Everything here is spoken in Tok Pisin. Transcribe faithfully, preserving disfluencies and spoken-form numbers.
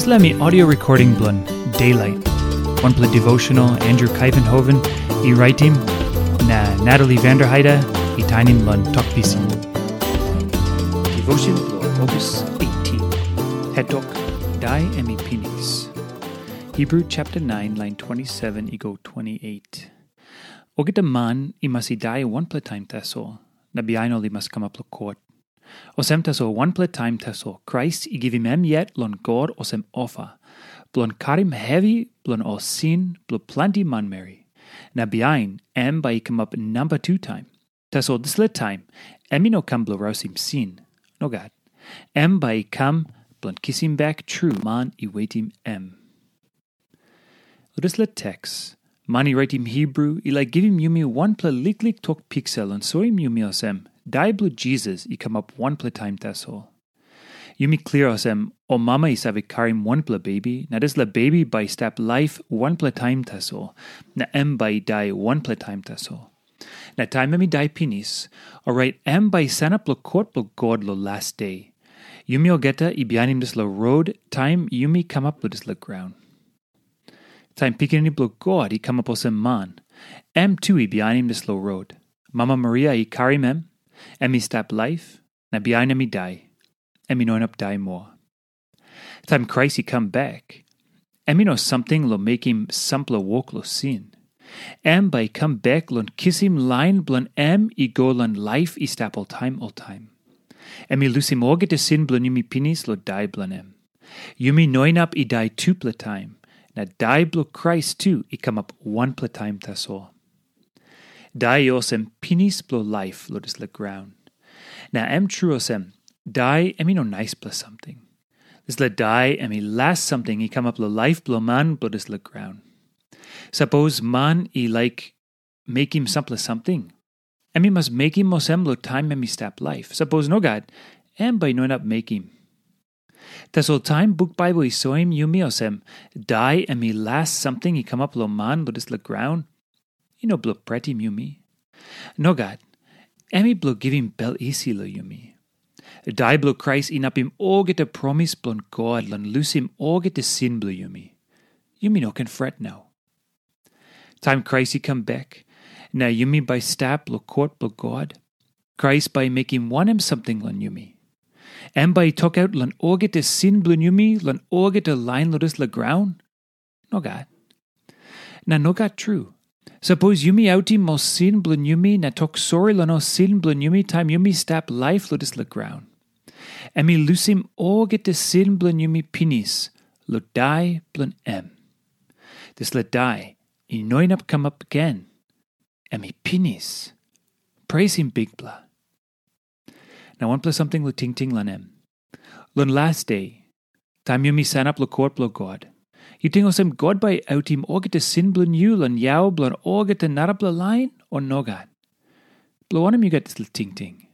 Dispela mi audio recording bilong Daylight, wanpela devotional Andrew Kuyvenhoven i raitim, na Natalie Vanderheide i tainim long Tok Pisin. Devotion bilong August eighteen. Hetok, Dai em i pinis. Hebrew chapter nine, line twenty-seven i go twenty-eight. Olgeta man i mas i dai wanpela taim tasol, na bihain ol i mas kamap long kot. Olsem tasol wanpela taim tasol Krais i givim em yet long God olsem ofa, bilong karim hevi bilong ol sin bilong planti manmeri. Na bihain em bai i kamap namba tu taim. Tasol dispela taim em i no kam bilong rausim sin. Nogat. Em bai i kam bilong kisim bek tru man i wetim em. Long dispela teks, man i raitim Hebru i laik givim yumi wanpela liklik tok piksa long soim yumi olsem, dai bilong Jisas i kamap wanpela taim tasol. Yumi klia olsem, ol mama i save karim wanpela bebi, na dispela bebi bai i stap laip wanpela taim tasol, na em bai i dai wanpela taim tasol. Na taim em i dai pinis, orait em bai i sanap long kot bilong God long las de. Yumi olgeta i bihainim dispela rot taim yumi kamap long dispela graun. Taim Pikinini bilong God i kamap olsem man, em tu i bihainim dispela rot. Mama Maria i karim em, em i stap laip, na bihain em i dai. Em i no inap dai moa. Taim Krais i kam bek, em i no samting long mekim sampela wok long sin. Em bai i kam bek long kisim lain bilong em i go long laip i stap oltaim oltaim. Em i lusim olgeta sin bilong yumi pinis long dai bilong em. Yumi no inap i dai tupela taim, na dai bilong Krais tu i kamap wanpela taim tasol. Dai i olsem pinis bilong laip long dispela graun. Na em tru olsem, dai em i no naispela samting. Dispela dai em i las samting i kamap long laip bilong man bilong dispela graun. Sapos man i laik mekim sampela samting, em i mas mekim olsem long taim em i stap laip. Sapos nogat, em bai i no inap mekim. Tasol taim buk Baibel i soim yumi olsem, dai em i las samting i kamap long man long dispela graun, i no bilong pretim yumi. Nogat, em i bilong givim bel isi long yumi. Dai bilong Krais inapim olgeta promis bilong God long lusim olgeta sin bilong yumi. Yumi no ken fret nau. Taim Krais i kam bek, na yumi bai stap long kot bilong God, Krais bai i mekim wanem samting long yumi? Em bai i tokaut long olgeta sin bilong yumi long olgeta lain long dispela graun? Nogat. Na nogat tru. Sapos yumi autim ol sin bilong yumi na tok sori long ol sin bilong yumi taim yumi stap laip long dispela graun, em i lusim olgeta sin bilong yumi pinis long dai bilong em. Dispela dai i no inap kamap gen. Em i pinis. Presim Bikpela. Na wanpela samting long tingting long em. Long las de, taim yumi sanap long kot bilong God, yu ting olsem God bai i autim olgeta sin bilong yu long yau bilong olgeta narapela lain, o nogat? Bilong wanem yu gat dispela tingting?